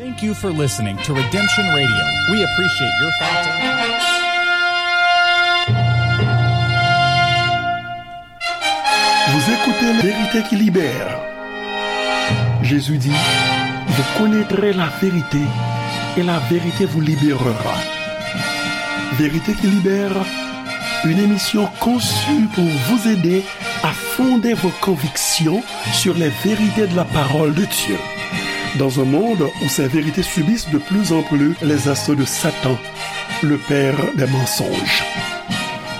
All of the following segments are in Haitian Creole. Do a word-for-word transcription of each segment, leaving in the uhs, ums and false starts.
Thank you for listening to Redemption Radio. We appreciate your thoughts and Vous écoutez La Vérité qui libère. Jésus dit, vous connaîtrez la vérité et la vérité vous libérera. Vérité qui libère, une émission conçue pour vous aider à fonder vos convictions sur les vérités de la parole de Dieu. Dans un monde où ces vérités subissent de plus en plus les assauts de Satan, le père des mensonges.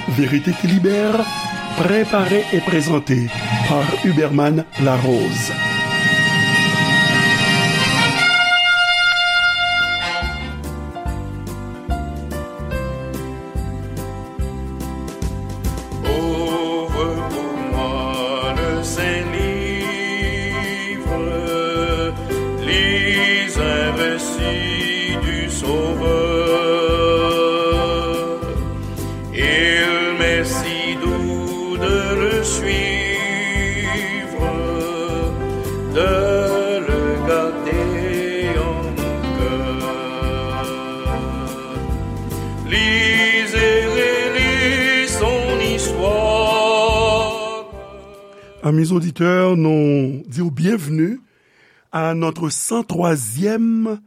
Vérité qui libère, préparée et présentée par Huberman Larose. Ouvre pour moi le saint livre, lis un récit du Sauveur. Il m'est si doux de le suivre, de le garder en mon cœur. Lisez, relisez son histoire. Amis auditeurs, nous disons bienvenue à notre cent troisième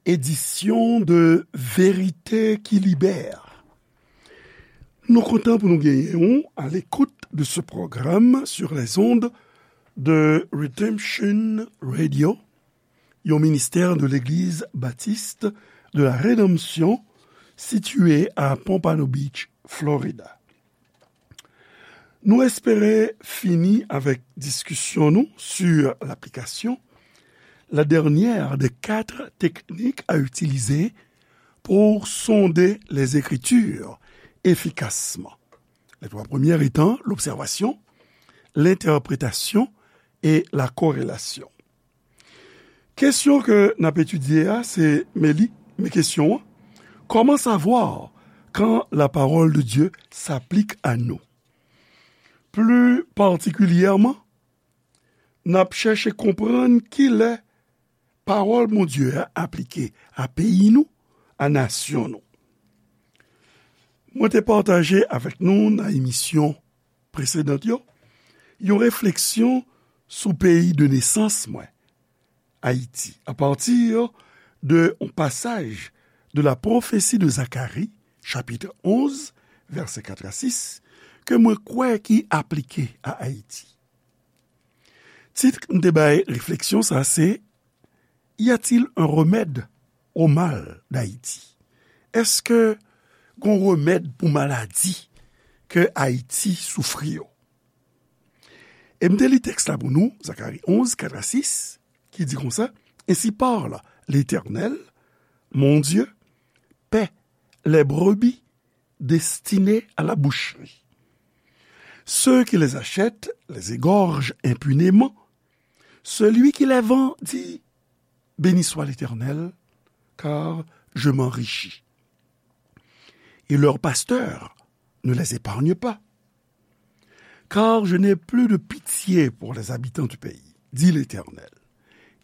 édition de Vérité qui libère. Nou kontan pou nou genyen w à l'écoute de ce programme sur les ondes de Redemption Radio, yon ministè de l'Église Baptiste de la Rédemption situé à Pompano Beach, Florida. Nou espere fini avèk diskisyon nou sur l'application, la dernière des quatre techniques à utiliser pour sonder les Écritures efficacement. Les trois premières étant l'observation, l'interprétation et la corrélation. Kesyon ke n ap etidye a, se, men li, men kesyon an, comment savoir quand la parole de Dieu s'applique à nous? Plus particulièrement, n ap chèche konprann kilè pawòl Bondye a aplike a peyi nou, a nasyon nou. Mwen te pataje avèk nou nan emisyon presedan yo, yon refleksyon sou peyi de nesans mwen, Ayiti, apati de yon pasaj de la pwofesi de Zakari, chapit onz, vèsè kat a sis, ke mwen kwè ki aplike a Ayiti. Tit m te bay refleksyon sa se, Y a-t-il un remède au mal d'Haïti? Èske gon remèd pou maladi ke Ayiti soufri yo? E m te li tèks la pou nou, Zakari onz, kat a sis, ki di konsa, Ainsi parle l'Éternel, mon Dieu, paie les brebis destinées à la boucherie. Ceux qui les achètent les égorgent impunément. Celui qui les vend dit, Béni soit l'Éternel, car je m'enrichis. Et leurs pasteurs ne les épargnent pas. Car je n'ai plus de pitié pour les habitants du pays, dit l'Éternel.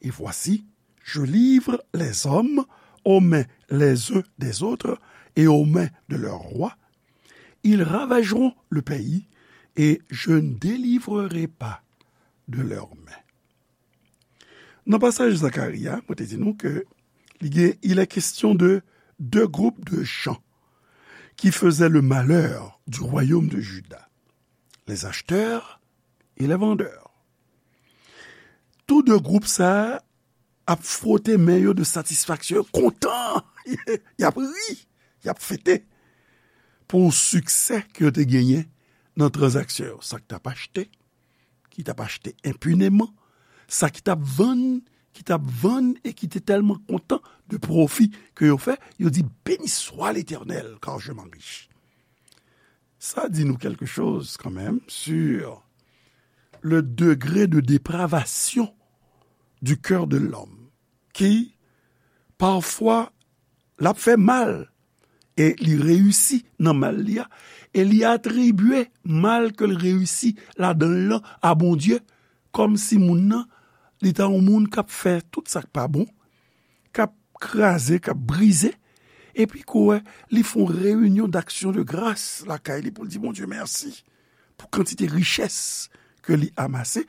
Et voici, je livre les hommes aux mains les uns des autres et aux mains de leurs rois. Ils ravageront le pays et je ne délivrerai pas de leurs mains. Nan pasaj Zakari a, mwen te di nou ke li gen, il est question de deux groupes de gens qui faisaient le malheur du royaume de Juda, les acheteurs et les vendeurs. Tou de gwoup sa a ap fwote men yo de satisfaksyon, yo kontan, y ap ri, y ap fete pou siksè ke yo te genyen nan tranzaksyon yo. Sa k t ap achte, ki t ap achte enpineman, sa ki t ap vann, ki t ap vann e ki te tèlman kontan de pwofi ke yo fè, yo di, Béni soit l'Éternel, car je m'enrichis. Sa di nou quelque chose quand même sur le degré de dépravation du cœur de l'homme, ki pafwa l ap fè mal e li reyisi nan mal li a, e li atribye mal ke l reyisi ladan l lan a Bondye, kòmsi moun nan, li ta yon moun k ap fè tout sa k pa bon, k ap kraze, k ap brize, epi ke w wè li fè yon reyinyon d'action de grâce lakay li pou l di Bondye mèsi pou kantite richès ke li amase,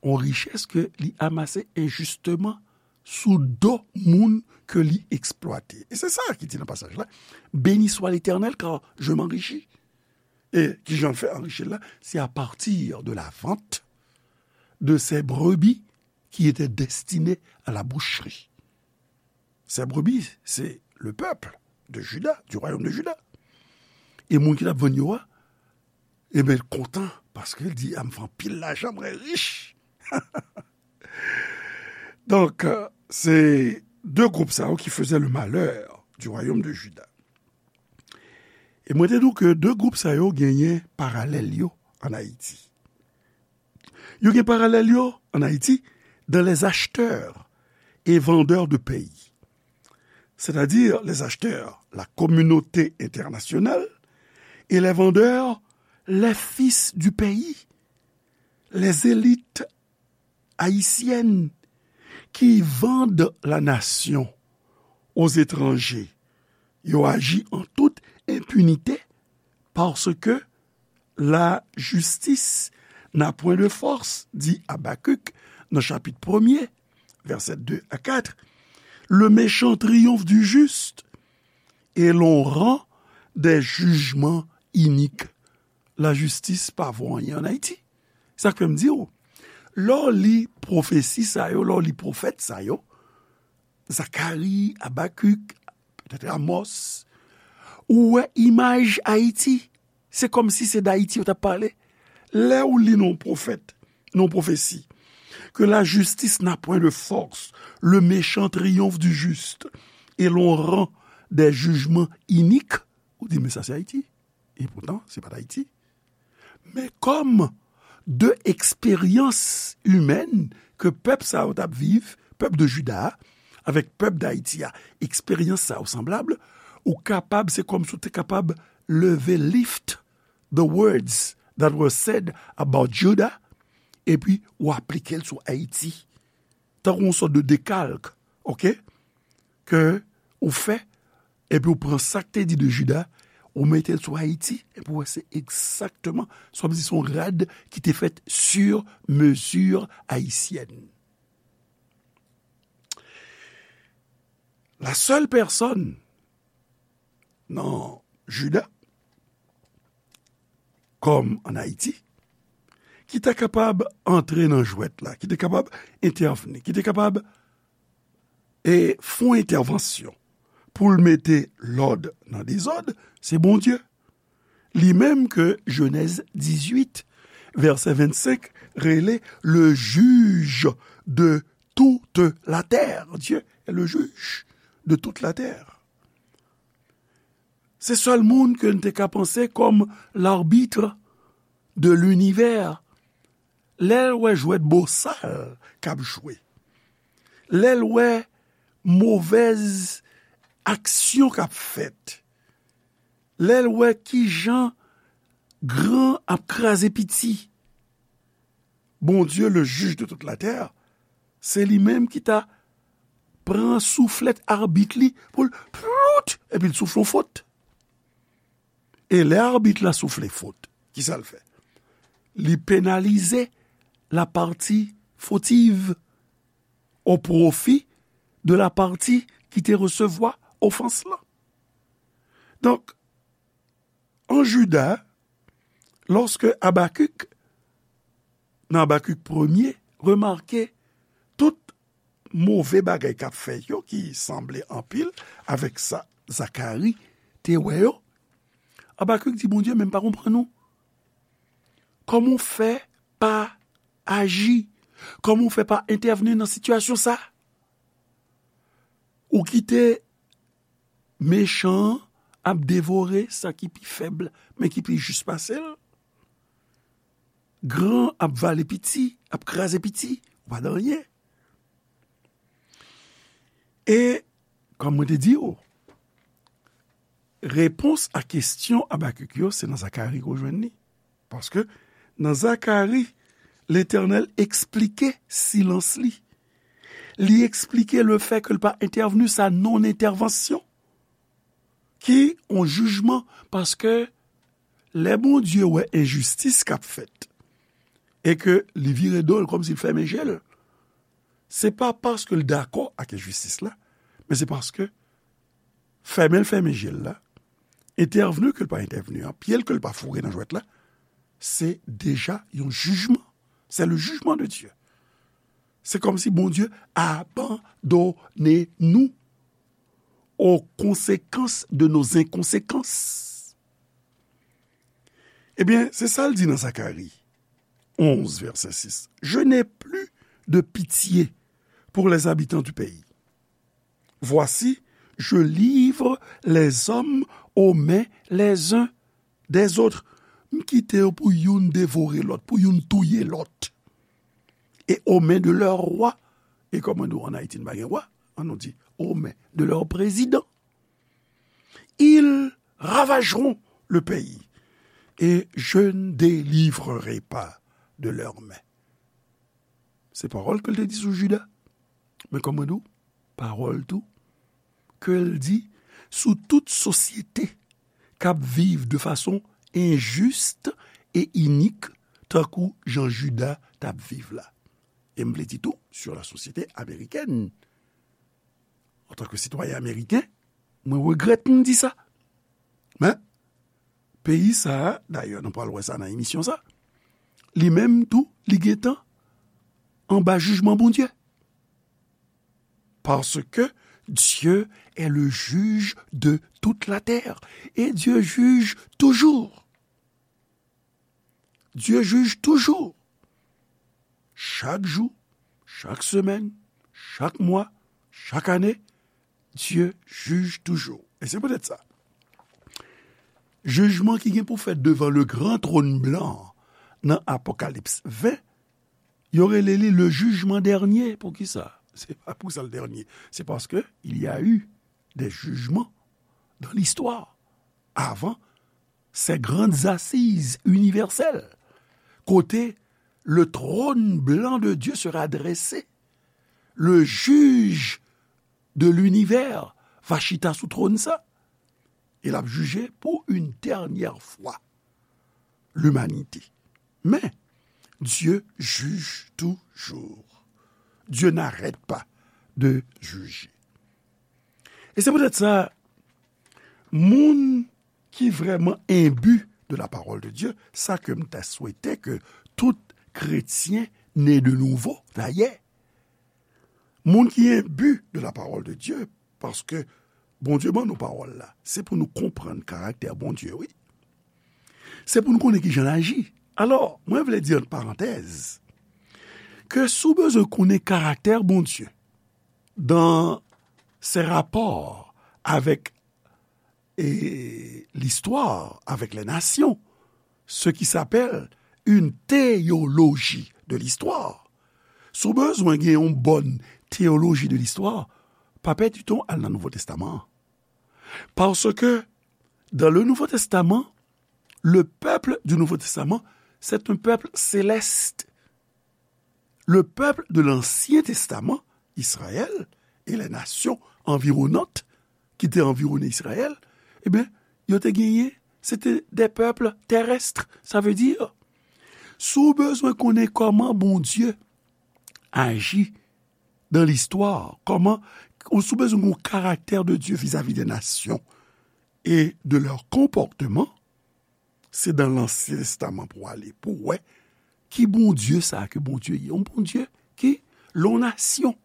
yon richès ke li amase enjisteman sou do moun ke li eksplwate. E se sa ki di nan pasaj la, Béni soit l'Éternel, car je m'enrichis. E kijan l fè anrichi l la? C'est à partir de la vente de ces brebis qui étaient destinées à la boucherie. Ces brebis, c'est le peuple de Juda, du royaume de Juda. E moun ki t ap vann yo a, e ben, l kontan, paske l di, a, m fè anpil lajan, mwen rich. Donk, euh, se de gwoup sa yo ki faisaient le malheur du royaume de Juda. E mwen te di w ke de gwoup sa yo genyen paralèl yo ann Ayiti. Yo gen paralèl yo ann Ayiti dans les acheteurs et vendeurs de pays. C'est-à-dire les acheteurs, la communauté internationale, et les vendeurs, les fils du pays, les élites haïtiennes qui vendent la nation aux étrangers. Yo aji en toute impunité parce que la justice n'a point de force, dit Habacuc dans chapitre premier, versets deux à quatre. Le méchant triomphe du juste et l'on rend des jugements iniques. Lajistis pa vo anyen ann Ayiti. Sa k fè m di w, lè w li pwofesi sa yo, lè w li pwofèt sa yo, Zakari, Abakik, petèt Amos, ou wè imaj Ayiti. Se kòmsi se d Ayiti yo t ap pale. Lè w li nan yon pwofèt, nan yon pwofesi, que la justice n'a point de force, le méchant triomphe du juste, et l'on rend des jugements iniques, ou di, men sa se Ayiti. E poutan, se pa t Ayiti. Men kòm de eksperyans imèn ke pèp sa yo t ap viv, pèp de Jida a, avèk pèp d Ayiti a, eksperyans sa yo sanblab, ou kapab, se kòmsi w te kapab leve, lift the words that were said about Judah, epi w aplike l sou Ayiti. Tankou yon sòt de dekalk, oke? Ke ou fè, epi ou pran sa k te di de Jida, ou mete l sou Ayiti, epi ou wè se egzakteman, sa vle di se yon rad ki te fèt sur mesure haïtienne. La seule personne nan Jida, kòm ann Ayiti, ki ta kapab antre nan jwèt la, ki te kapab entèvni, ki te kapab e fè yon entèvansyon pou l mete lòd nan dezòd, se Bondye. Li menm ke Jenèz dizuit, vèsè vennsenk, rele le juge de toute la terre. Dieu est le juge de toute la terre. Se sèl moun ke n te ka panse kòm l'arbitre de l'univers. Lè l wè jwèt bosal k ap jwe, lè l wè movèz aksyon k ap fèt, lè l wè kijan gran ap kraze piti, Bondye, le juge de toute la terre, se li menm ki ta pran souflèt abit li pou l plout, epi l soufle yon fot. E lè abit la soufle fot, kisa l fè? Li penalize la partie fautive au profit de la partie ki te resevwa ofans lan. Donk, an Jida, lòske Abakik, nan Abakik premye, remake tout move bagay k ap fèt yo, ki sanble anpil avèk sa Zakari te wè yo, Abakik di Bondye, men m pa konprann ou. Kòman w fè pa aji? Kòman w fè pa entèvni nan sitiyasyon sa? Ou kite mechan an ap devore sa ki pi fèb, men ki pi jis pase l. Gran ap vale piti, ap kraze piti, ou pa nan anyen. E, kòm mwen te di w, repons a kesyon Abakik yo, se nan Zakari ke w jwenn li. Paske nan Zakari, Letènèl eksplike silans li. Li eksplike le fè ke l pa entèvni, sa non-entèvansyon, ki yon jijman, paske lè Bondye wè enjistis k ap fèt, e ke li vire do l kòmsi l fèmen je l, se pa paske l dakò ak enjistis la, men se paske fèmen l fèmen je l la, entèvni ke l pa entèvni an, pye l ke l pa foure nan jwèt la, se deja yon jijman. C'est le jugement de Dieu. Se kòmsi Bondye abandone nou aux conséquences de nos inconséquences. Ebyen, se sa l di nan Zakari onz, vèsè sis. Je n'ai plus de pitié pour les habitants du pays. Voici, je livre les hommes aux mains les uns des autres. M kite yo pou youn devore lòt, pou youn touye lòt. Et aux mains de leurs rois. E kòman nou an Ayiti, nou pa gen wa? An nou di, aux mains de leurs présidents. Ils ravageront le pays et je ne délivrerai pas de leurs mains. Se pawòl ke l te di sou Jida. Men kòman nou? Pawòl tou ke l di sou tout sosyete k ap viv de fason enjis e inik, tankou jan Jida t ap viv la. E m vle di tou, sur la société américaine. Antanke sitwayen ameriken, mwen regrèt m di sa. Men, peyi sa a, dayè, nou pral wè sa nan emisyon sa, li menm tou, li gentan anba jijman Bondye. Parce que Dieu est le juge de toute la terre. Et Dieu juge toujours. Dieu juge toujours. Chak jou, chak semèn, chak mwa, chak ane, Dieu juge toujours. E se poutèt sa, jijman ki gen pou fèt devan le gran tròn blan nan Apokalips ven, yo rele li le jugement dernier. Poukisa? Se pa pou sa l dènye. Se paske il y a eu des jugements dans l'histoire avant ces grandes assises universelles, kote le trône blanc de Dieu sera dressé, le juge de l'univers va chita sou twòn sa, e l ap jije pour une dernière fois l'humanité. Men, Dieu juge toujours. Dieu n'arrête pas de juger. E se poutèt sa, moun ki vrèman enbi de la parole de Dieu, sa ke m ta swete ke tout kretyen né de nouveau, dayè, moun ki enbi de la parole de Dieu, paske Bondye ban nou pawòl la, se pou nou konprann karaktè Bondye, wi. Se pou nou konnen kijan l aji. Alò, mwen vle di ant parantèz, ke si w bezwen konnen karaktè Bondye, dans ses rapports avec et l'histoire, avec les nations, ce qui s'appelle une théologie de l'histoire. Si w bezwen gen yon bòn teyoloji de listwa, pa pèdi tan w al nan Nouvo Testaman an. Parce que dans le Nouveau Testament, le peuple du Nouveau Testament, c'est un peuple céleste. Le peuple de l'Ancien Testament, Israël et les nations environnantes qui étaient environnées Israël, eh bien, yo te genyen, c'était des peuples terrestres. Ça veut dire, si w bezwen konnen kòman Bondye aji dans l'histoire, kòman, ou si w bezwen yon karaktè de Dieu vis-à-vis des nations et de leur comportement, se dans l'Ancien Testament pou w ale, pou w wè ki Bondye sa a ke Bondye ye. Yon Bondye ki, lè yon nasyon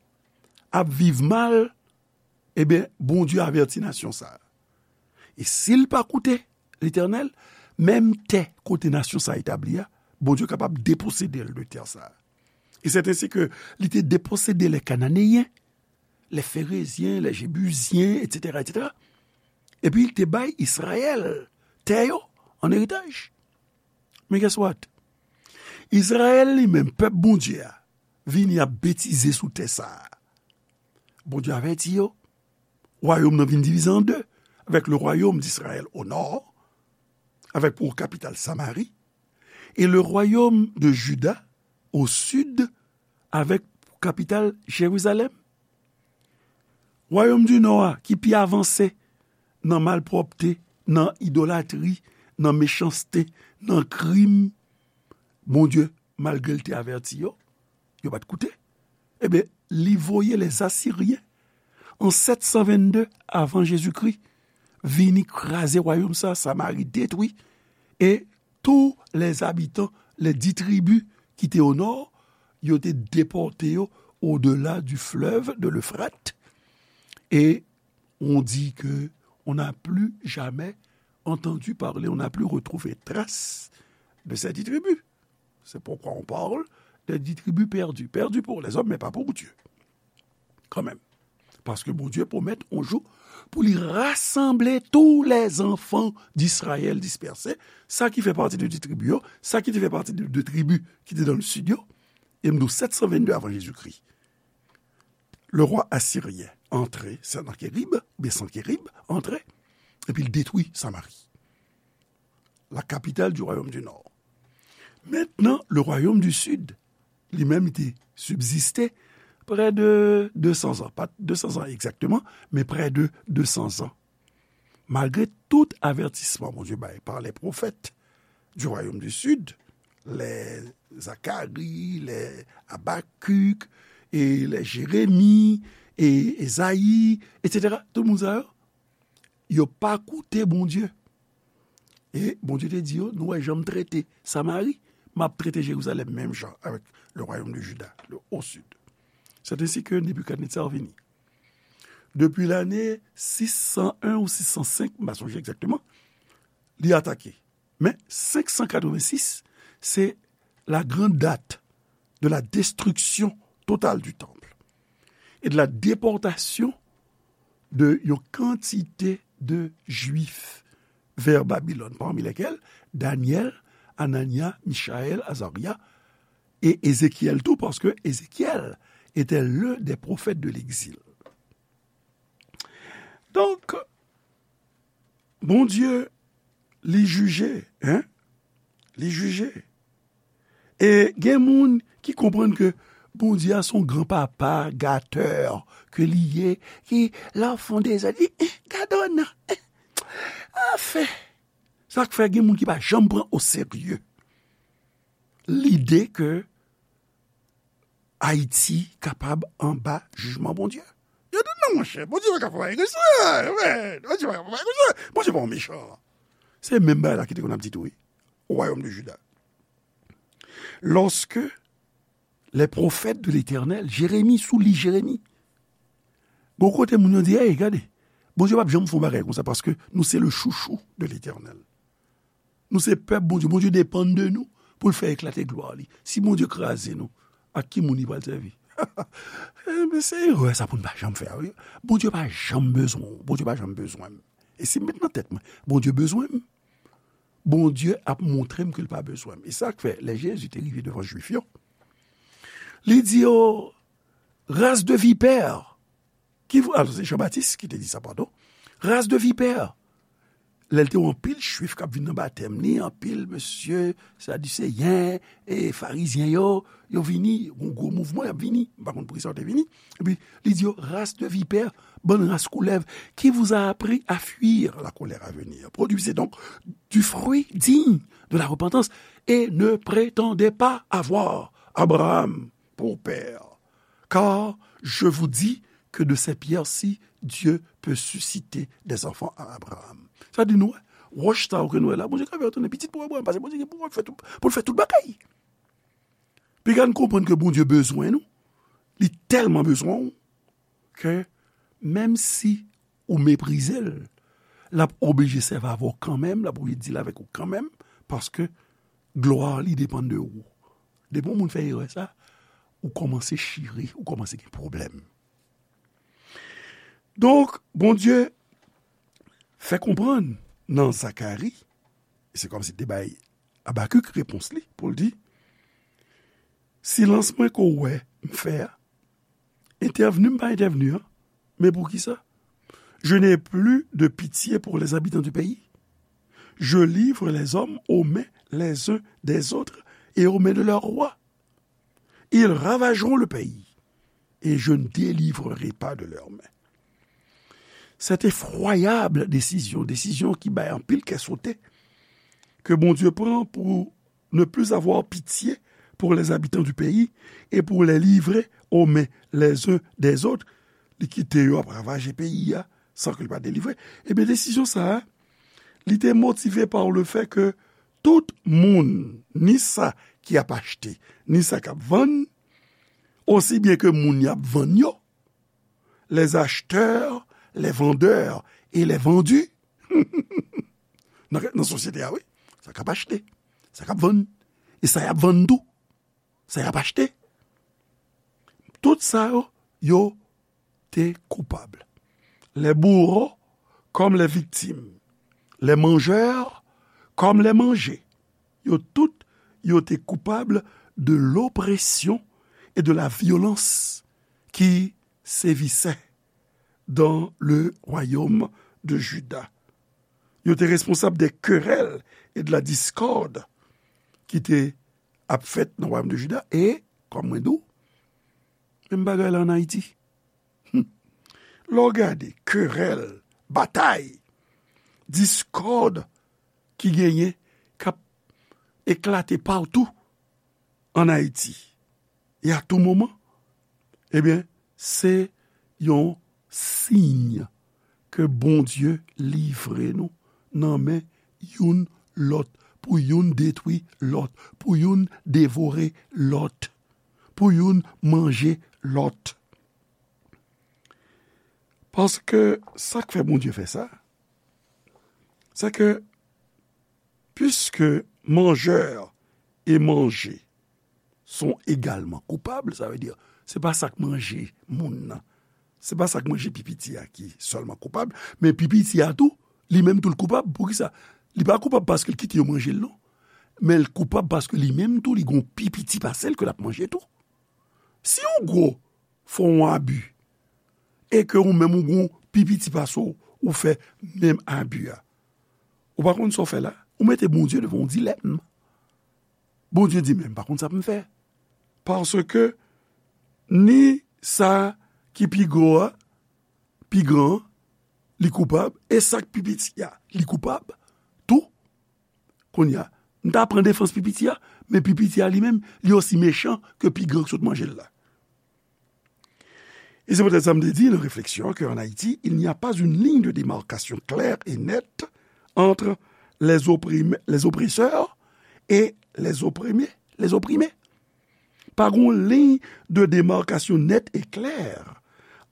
ap viv mal, ebyen, Bondye avèti nasyon sa a. E si l pa koute Letènèl, menm tè kote nasyon sa a etabli a, Bondye kapab deposede l de tè sa a. E c'est ainsi que li te deposede les Cananéens, les Phéréziens, les Jébusiens, et cetera, et cetera. Epi li te bay Izrayèl tè yo an eritaj. Men guess what? Izrayèl li menm, pèp Bondye a, vini ap betize sou tè sa a. Bondye avèti yo. Wayòm nan vin divize an de, avec le royaume d'Israël au nord, avec pour capitale Samarie, et le royaume de Juda au sud, avec kapital Jerizalèm. Wayòm di Nò a, ki pi avanse nan malpwòpte, nan idolatri, nan mechanste, nan krim, Bondye, malgre l te avèti yo, yo pa t koute. Ebyen, li voye lèzasiryen an sèt san vennde avan Jezikri vini kraze wayòm sa, Samari detwi, e tou lèzabitan, lè di tribi ki te o nò, yo te depòte yo odela di flèv de Lefrat, e on dit que on n'a plus jamais entendu parler, on n'a plus retrouvé trace de ces dix tribus. C'est pourquoi on parle des dix tribus perdues. Perdues pour les hommes, mais pas pour Dieu. Quand même. Paske Bondye pwomèt yon jou pou li rasanble tou lè zanfan di Izrayèl dispèse, sa ki fè pati de di tribi yo, sa ki te fè pati de, de tribi ki te nan sid yo, e m di w sèt san vennde avan Jezikri. Le roi assyrien antre, Sanakérib, oubyen Sankerib, antre, epi l detwi Samari, la capitale du royaume du nord. Mentnan, le royaume du sud, li menm, li te sibziste prè de de san zan, pa de san zan egzakteman, men prè de de san zan. Malgre tout avètisman Bondye bay par les prophètes du royaume du sud, les Zacharie, les Habacuc, e les Jérémie, e Ezayi, etsetera, tout moun sa yo, yo pa koute Bondye. E Bondye te di yo, nou wè jan m trete Samari, m ap trete Jerizalèm menm jan avèk le royaume de Juda, le, au sud. C'est ainsi que Nebuchadnezzar vini. Depi lane sis san en ou sis san senk, m pa sonje egzakteman, li atake. Men senk san katrevensis, se la grande date de la destruction totale du temple et de la déportation de yon kantite de Jwif vers Babylone, parmi lesquels Daniel, Anania, Michaël, Azaria et Ézéchiel tou, parce que Ézéchiel était l'un des prophètes de l'exil. Donk, Bondye, li jije, hein? Li jije. E gen moun ki konprann ke Bondye a se yon gran papa, gatè, ke li ye, ki, lè w fè yon dezòd, li, eh, gade w nan, eh, anfen. Sa k fè gen moun ki pa janm pran o serye lide ke Ayiti kapab anba jijman Bondye. Yo di, "Non, monchè, Bondye pa ka fè bagay konsa, men, Bondye pa ka fè bagay konsa, Bondye pa yon mechan." Se menm bagay la ki te konn ap di tou, wi, o wayòm de Jida. Lorsque les prophètes de l'Éternel, Jérémie, sou li Jérémie, gon kote moun yo di, "Ey, gade, Bondye p ap janm fè yon bagay konsa, paske nou se le chouchou de l'Éternel." Nou se pèp Bondye. Bondye depann de nou pou l fè eklate glwa li. Si Bondye kraze nou, ak ki moun li pral sèvi? Enben, se erè sa pou n pa janm fè, wi. Bondye pa janm bezwen w. Bondye pa janm bezwen m. E si m met nan tèt mwen, Bondye bezwen m, Bondye ap montre m ke l pa bezwen m. E sa k fè, lè Jezi te rive devan Jwif yo, li di yo, "Race de vipères, qui vous," alò, se Jan Batis ki te di sa, padon. "Race de vipères." Lè l te wè anpil Jwif k ap vin nan batèm li, anpil mesye Sadiseyen e Farizyen yo, yo vini, yon gwo mouvman, y ap vini. M pa konn poukisa yo te vini. Epi, li di yo, "Race de vipères, bann ras koulèv, qui vous a appris à fuir la colère à venir? Produisez donc du fruit digne de la repentance et ne prétendez pas avoir Abraham pour père. Car je vous dis que de ces pierres-ci, Dieu peut susciter des enfants à Abraham." Sa di nou, wè, wòch sa yo ke nou wè la, Bondye ka fè yo tounen pitit pou Abraham, paske Bondye gen pouvwa pou fè tout, pou l fè tout bagay. Piga n konprann ke Bondye bezwen nou, li tèlman bezwen w, ke menm si ou meprize l, l ap oblije sèvi avè w kanmenm, l ap oblije deal avèk ou kanmenm, paske glwa li depann de ou. Depi yon moun fè erè sa, ou kòmanse chire, ou kòmanse gen pwoblèm. Donk, Bondye fè konprann nan Zakari, e se kòmsi te bay Abakik repons li pou l di, "Silans mwen ke w wè m fè a, entèvni m pa entèvni an, men poukisa? Je n'ai plus de pitié pour les habitants du pays. Je livre les hommes aux mains les uns des autres et aux mains de leurs rois. Ils ravageront le pays. et je ne délivrerai pas de leurs mains. Cette effroyable décision, desizyon ki bay anpil kè sote, ke Bondye pran pou ne plus avoir pitié pour les habitants du pays et pour les livrer aux mains les uns des autres, li kite yo ap ravaje peyi a san ke li pa delivre. Ebyen, desizyon sa a, li te motive par le fait que tout moun, ni sa ki ap achte, ni sa k ap vann, osi byen ke moun y ap vann yo, les acheteurs, les vendeurs et les vendus, nan, nan sosyete a, wi, sa k ap achte, sa k ap vann, e sa y ap vann tou, sa y ap achte. Tout sa yo, yo te koupab. Les bourreaux comme les victimes, les mangeurs comme les mangés. Yo tout, yo te koupab de l'oppression et de la violence qui sévissait dans le royaume de Juda. Yo te responsab de querelles et de la discorde ki te ap fèt nan wayòm de Jida. E, kòm mwen di w, menm bagay la ann Ayiti. Hmm. Lè w gade kerèl, batay, diskòd ki genyen, k ap eklate patou ann Ayiti, e a tou moman, ebyen, se yon siy ke Bondye livre nou nan men youn lòt, pou youn detwi lòt, pou youn devore lòt, pou youn manje lòt. Paske sa k fè Bondye fè sa, se ke, puisque mangeur et mangé sont également coupables, sa vle di, se pa sa k manje moun nan, se pa sa k manje pi piti a ki sèlman koupab, men pi piti a tou, li menm tou l koupab. Poukisa? Li pa koupab paske l kite yo manje l, non. Men l koupab paske li menm tou, li gon pi piti pase l ke l ap manje tou. Si yon gwo fè w yon abi, e ke ou menm ou gon pi piti pase w, ou fè menm abi a, ou pa konn sa w fè la, ou mete Bondye devan yon dilèm. Bondye di, "Men m pa konn sa pou m fè." Paske ni sa ki pi gwo a, pi gran an, li koupab, e sa k pi piti a, li koupab tou. Kounye a, m ta pran defans pi piti a, men pi piti a li menm, li osi mechan ke pi gran k sot manje l la. E se poutèt sa m te di nan refleksyon an ke an Ayiti, il n'y a pas une ligne de démarcation claire et nette entre les opprimés, les oppresseurs et les opprimés, les opprimés. Pa gon liy de demarkasyon nèt e klè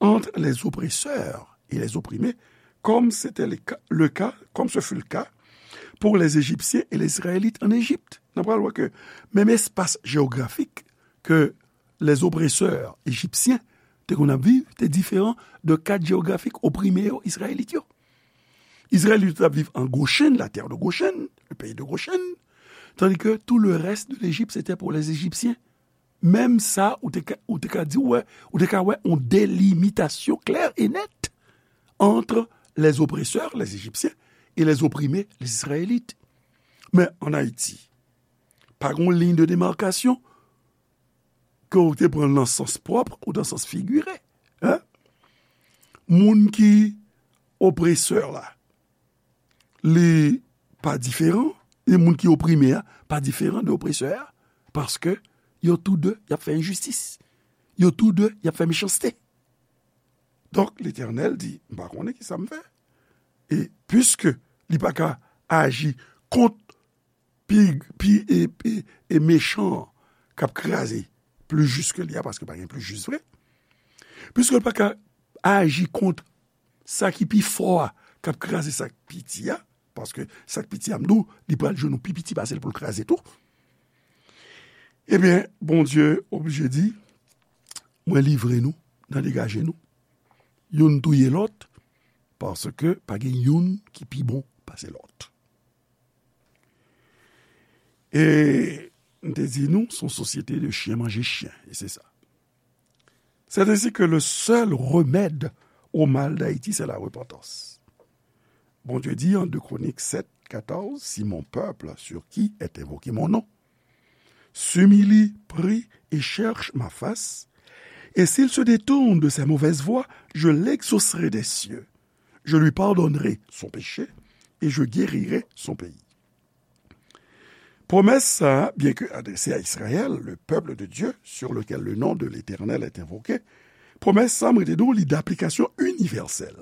ant les oppresseurs et les opprimés, comme c'était le cas, le cas, comme ce fut le cas pour les Égyptiens et les Israélites en Égypte. N ap pral wè ke menm espas jewografik ke les oppresseurs égyptiens te konn ap viv te diferan de kad jewografik oprime yo, Izrayelit yo. Izrayelit yo t ap viv an Goshen, la terre de Goshen, le pays de Goshen, tandis que tout le reste de l'Égypte, c'était pour les Égyptiens. Menm sa, ou te ka, ou te ka di, wè, ou te ka wè yon delimitasyon klè e nèt entre les oppresseurs, les Égyptiens, et les opprimés, les Israélites. Men an Ayiti, pa gen yon liy de demarkasyon ke w te pran nan sans pwòp ou nan sans figire. Hein? Moun ki opresè la, li pa diferan, e moun ki oprime a pa diferan de opresè a, paske yo tou de, y ap fè enjistis. Yo tou de, y ap fè mechanste. Donk, Letènèl di, "M pa konnen ki sa m fè." E piske li pa ka aji kont pi, pi, e, e, e mechan an k ap kraze pli jis ke li a, paske pa gen pli jis vre. Piske li pa ka aji kont sa ki pi fò a k ap kraze sa k piti a, paske sa k piti a, m di w, li pral jwenn yon pi piti pase l pou l kraze tou. Ebyen, Bondye oblije di, "Mwen livre nou nan degaje nou. Youn touye lòt, paske pa gen youn ki pi bon pase lòt." E m te di nou, se yon sosyete de chyen manje chyen, e se sa. C'est ainsi que le seul remède au mal d'Haïti, c'est la repentance. Bondye di an de Kronik sèt katòz, "Si mon peuple, sur qui est invoqué mon nom, s'humilie, prie et cherche ma face, Et s'il se détourne de ses mauvaises voies, je l'exaucerai des cieux. Je lui pardonnerai son péché et je guérirai son pays. Pwomès sa a, byen ke adrese a Izrayèl, le peuple de Dieu, sur lequel le nom de l'Éternel est invoqué, pwomès sa a, mwen te di w, li daplikasyon inivèsèl.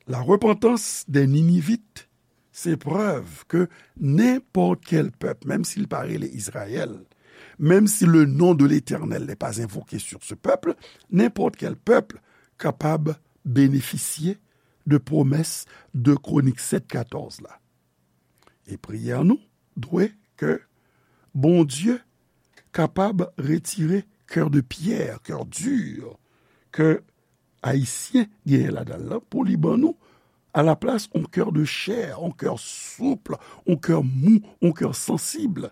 La repentance des Ninivites, se prèv ke nenpòt kèl pèp, menm si l pa rele Izrayèl, menm si le nom de l'Éternel n'est pas invoqué sur ce peuple, nenpòt kèl pèp kapab benefisye de pwomès de Kronik sèt katòz la. E priyè nou dwe ke Bondye kapab retire kè de pyè, kè di, ke Ayisyen genyen ladan l lan, pou li ban nou, alaplas, yon kè de chè, yon kè soup, yon kè mou, yon kè sansib.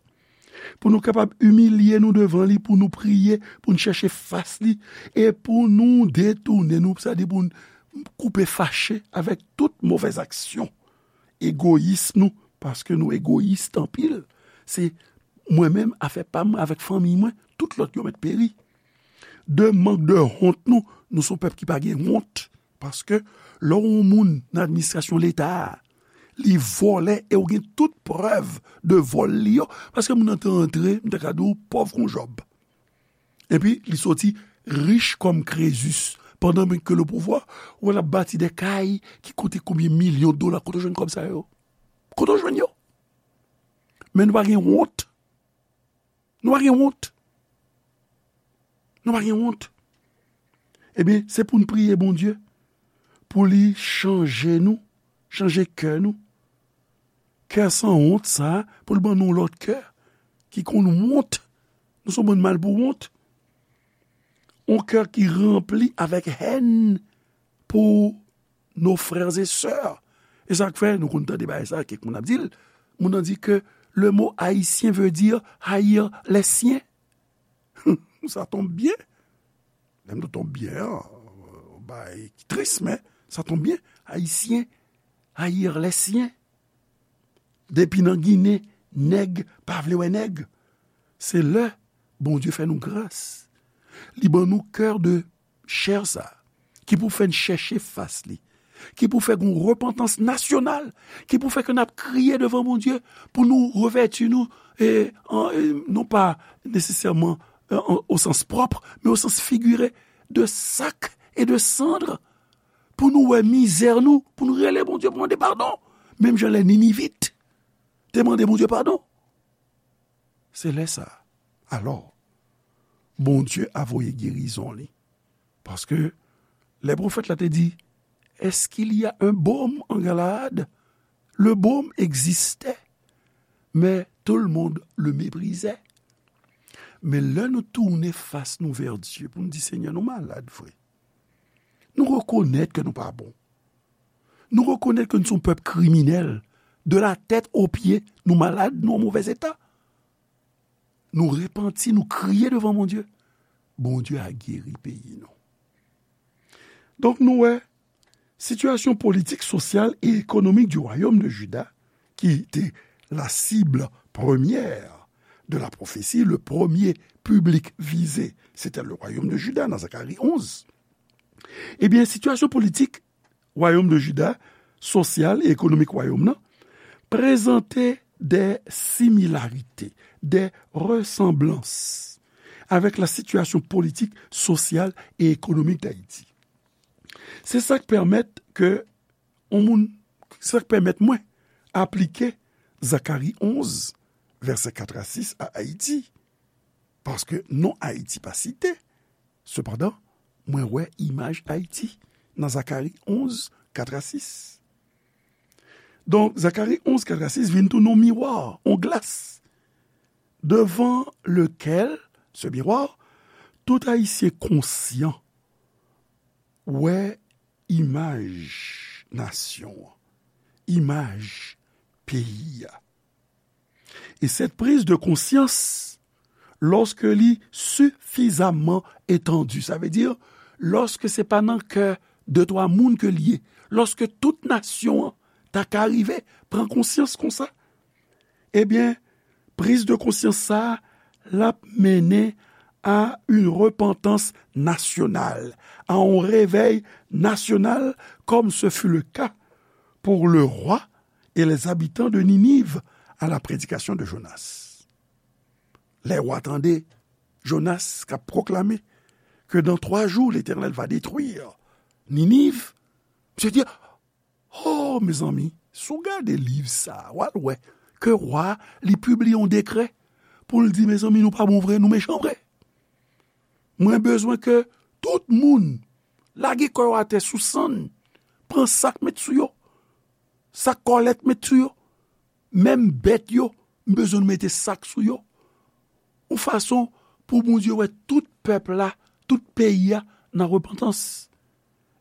Pou nou kapab imilye nou devan li, pou nou priye, pou nou chèche fas li, e pou nou detounen nou, sa di pou nou koupe fache avèk tout movèz aksyon, egoyis nou, paske nou egoyis anpil. Se mwen menm, afè pa m avèk fanmi mwen, tout lòt yo mèt peri. De mank de wont nou, nou se yon pèp ki pa gen wont. Paske lè w yon moun nan administrasyon Leta a, li vòlè e w gen tout prèv de vòl li yo, paske moun nan te antre, m ta ka di w, pòv kon Jòb. Epi, li soti rich kòm Krezus. Pandan menm ke le pouvwa, ou wè l ap bati de kay ki koute konbyen milyon dola. Kote w jwenn kòb sa yo? Kote w jwenn yo? Men nou pa gen wont. Nou pa gen wont. Nou pa gen wont. Ebyen, se pou n priye Bondye, pou li chanje nou, chanje kè nou. Kè san wont sa, pou l ban nou lòt kè, ki konn wont. Nou se yon bann mal pou wont. Yon kè ki ranpli avèk hèn pou nos frères et sœurs. E sa k fè, nou konn tande bagay sa, kèk moun ap di l, moun nan di ke le mot haïtien veut dire haïr les siens. Ça tombe bien. Lè m di tombe bien an, bagay ki tris, men ça tombe bien. Ayisyen, haïr les siens. Depi nan Ginen, nèg pa vle wè nèg. Se lè Bondye fè nou gras. Li ban nou kè de chè sa, ki pou fè n chèche fas li, ki pou fè gon repantans nasyonal, ki pou fè ke n ap kriye devan Bondye pou nou revèti nou, e, an, e, non pa nesesèman, e, an, o sans pwòp, men o sans figire, de sak e de sandre, pou nou wè mizè nou, pou nou rele Bondye pou mande padon. Menm jan lè Ninivit te mande Bondye padon. Se lè sa a, alò, Bondye a voye gerizon li. Paske lè pwofèt la te di, est-ce qu'il y a un baume en Galaad? Le baume existait, mais tout le monde le méprisait. Men lè nou tounen fas nou vè Dye pou nou di, Senyè, nou malad vre. Nou rekonèt ke nou pa bon. Nou rekonèt ke nou se yon pèp kriminèl. De la tèt o pye, nou malad, nou an movèz eta. Nou repanti, nou kriye devan Bondye. Bondye a geri peyi nou. Donk, nou wè, sitiyasyon politik, sosyal e ekonomik du royaume de Juda, ki te la cible première de la prophétie, le premier public visé, c'était le royaume de Juda, nan Zakari onz. Ebyen, sitiyasyon politik wayòm de Jida, sosyal e ekonomik wayòm nan, prezante de similarite, de resanblans avèk la sitiyasyon politik, sosyal e ekonomik d Ayiti. Se sa k pèmèt ke yon moun, sa k pèmèt mwen aplike Zakari onz, vèsè kat a sis a Ayiti. Paske non Ayiti pa site. Sepandan, mwen wè imaj Ayiti nan Zakari onz, kat a sis. Donk, Zakari onz, kat a sis vin tounen yon miwa, yon glas, devan lekel, ce miroir, tout Ayisyen konsyan wè imaj nasyon an, imaj peyi a. E cette prise de conscience, lorsque li sifizamman etandi, sa vle di, lòske se pa nan kè de twa moun ke l ye, lòske tout nasyon an ta ka rive pran konsyans konsa, ebyen, priz de konsyans sa a, l ap mennen à une repentance nationale, à un réveil national, comme ce fut le cas pour le roi et les habitants de Ninive à la prédication de Jonas. Lè wa tande Jonas k ap pwoklame ke dans trois jours l'Éternel va détruire Ninive, misye di, oh, mezanmi, si w gade liv sa a, w al wè ke wa a, li pibliye yon dekrè pou l di, mezanmi, nou pa bon vre, nou mechan vre. Mwen bezwen ke tout moun lage kò yo atè sou sann, pran sak met sou yo, sak kòlèt met sou yo, menm bèt yo, m bezwen nou mete sak sou yo. Yon fason pou Bondye wè tout pèp la, tout peyi a nan repantans.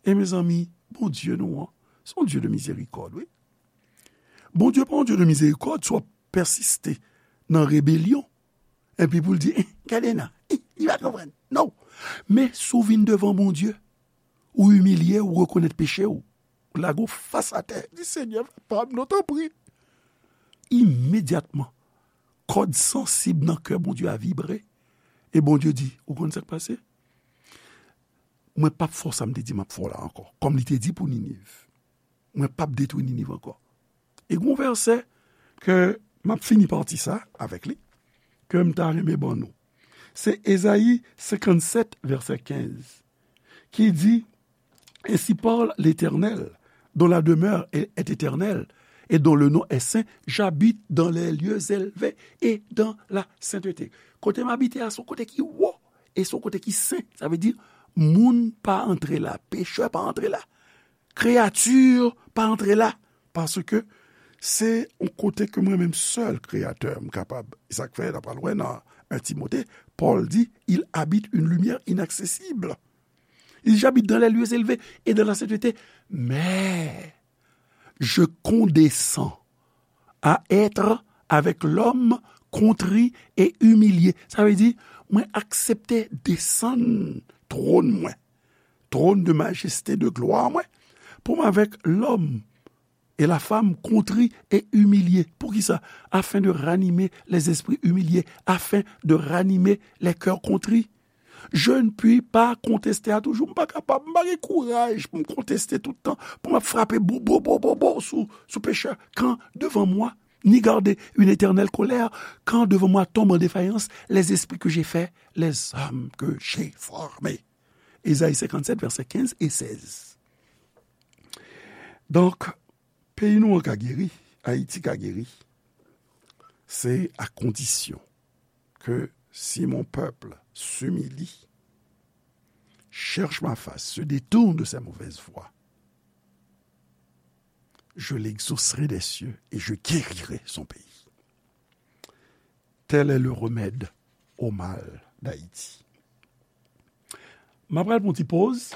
E mezanmi, Bondye nou an, se yon Dye de mizerikòd, wi. Bondye pa yon Dye de mizerikòd, si w ap pèsiste nan rebelyon, epi pou l di, eh, gade nan, eh, li pa konprann. Non. Men si w vin devan Bondye, ou imilye, ou rekonèt peche w, ou lage w fas atè, di, Senyè, papa m non, tanpri. Imedyatman, kòd sansib nan kè Bondye a vibre, e Bondye di, ou konn sa k pase? Mwen p ap fè w sa m te di m ap fè w la ankò. Kòm li te di pou Niniv, mwen p ap detwi Niniv ankò. E gen yon vèsè ke m ap fini pati sa avèk li, ke m ta renmen ban nou. Se Ezayi senkannsèt, vèsè kenz, ki di, Ainsi parle l'Éternel, dont la demeure est, est éternelle, et dont le nom est saint, j'habite dans les lieux élevés et dans la sainteté. Kote m abite a, se yon kote ki wo, e se yon kote ki sen. Sa vle di, moun pa antre la, pechè pa antre la, kreyati pa antre la, paske se yon kote ke mwen menm sèl Kreyatè m kapab. E sa k fè, n a pral wè nan en Timote, Pòl di, il habite une lumière inaccessible. Il habite dans les lieux élevés et dans la sainteté. Mais je condescends à être avec l'homme contrit et humilié. Sa vle di, mwen aksepte desann twòn mwen, trône de majesté, de gloire mwen, pou m avèk lòm e la fam kontri e imilye. Poukisa? Afin de ranimer les esprits humiliés, afin de ranimer les cœurs contrits. Je ne puis pas contester à toujours. M pa kapab, m pa gen kouraj pou m konteste tout tan, pou m ap frape bo, bo, bo, bo, bo sou, sou pechè. Quand devant moi, ni garder une éternelle colère, quand devant moi tombent en défaillance les esprits que j'ai faits, les hommes que j'ai formés. Ezayi senkannsèt, vèsè kenz e sèz. Donk, peyi nou an ka geri, Ayiti ka geri, se à condition que si mon peuple s'humilie, cherche ma face, se détourne de ses mauvaises voies, je l'exaucerai des cieux et je guérirai son pays. Tel est le remède au mal d'Haïti. M ap pral pran yon ti poz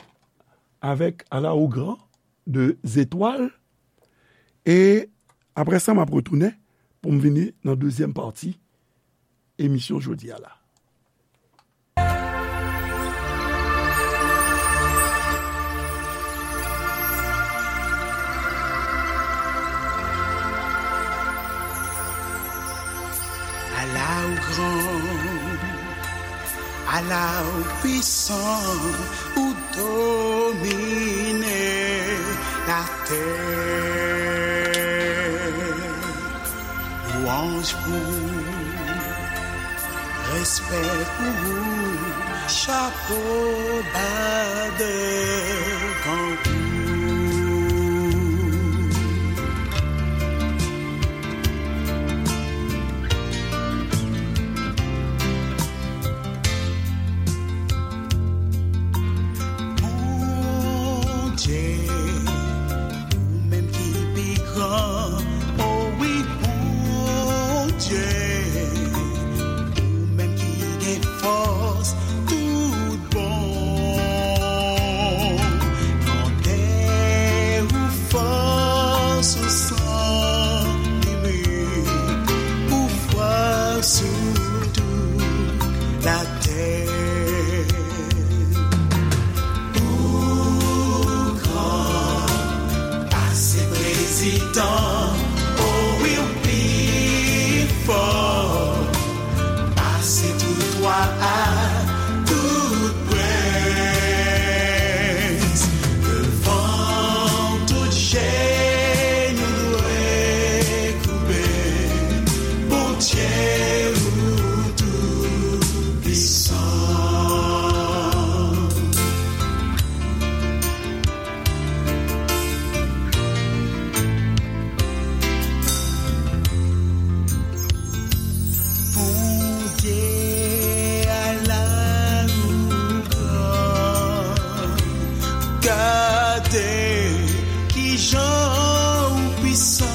avèk À la au grand de Zetwal. E apre sa, m ap retounen pou m vini nan dezyèm pati emisyon jodi a la. À la au grand, à la au puissant, ou domine la terre. Louange pour ou, respect pour ou, chapeau bas devant vous. Bondye, ou menm ki pi gran, o wi, Bondye, ou menm ki gen fòs tout bon. Grandè ou, fòs ou san limit, ou fwa sou tout latè. Ou gran pase prezidan, o wi, ou pi fò pase tout wa a. Gade kijan ou pwisan,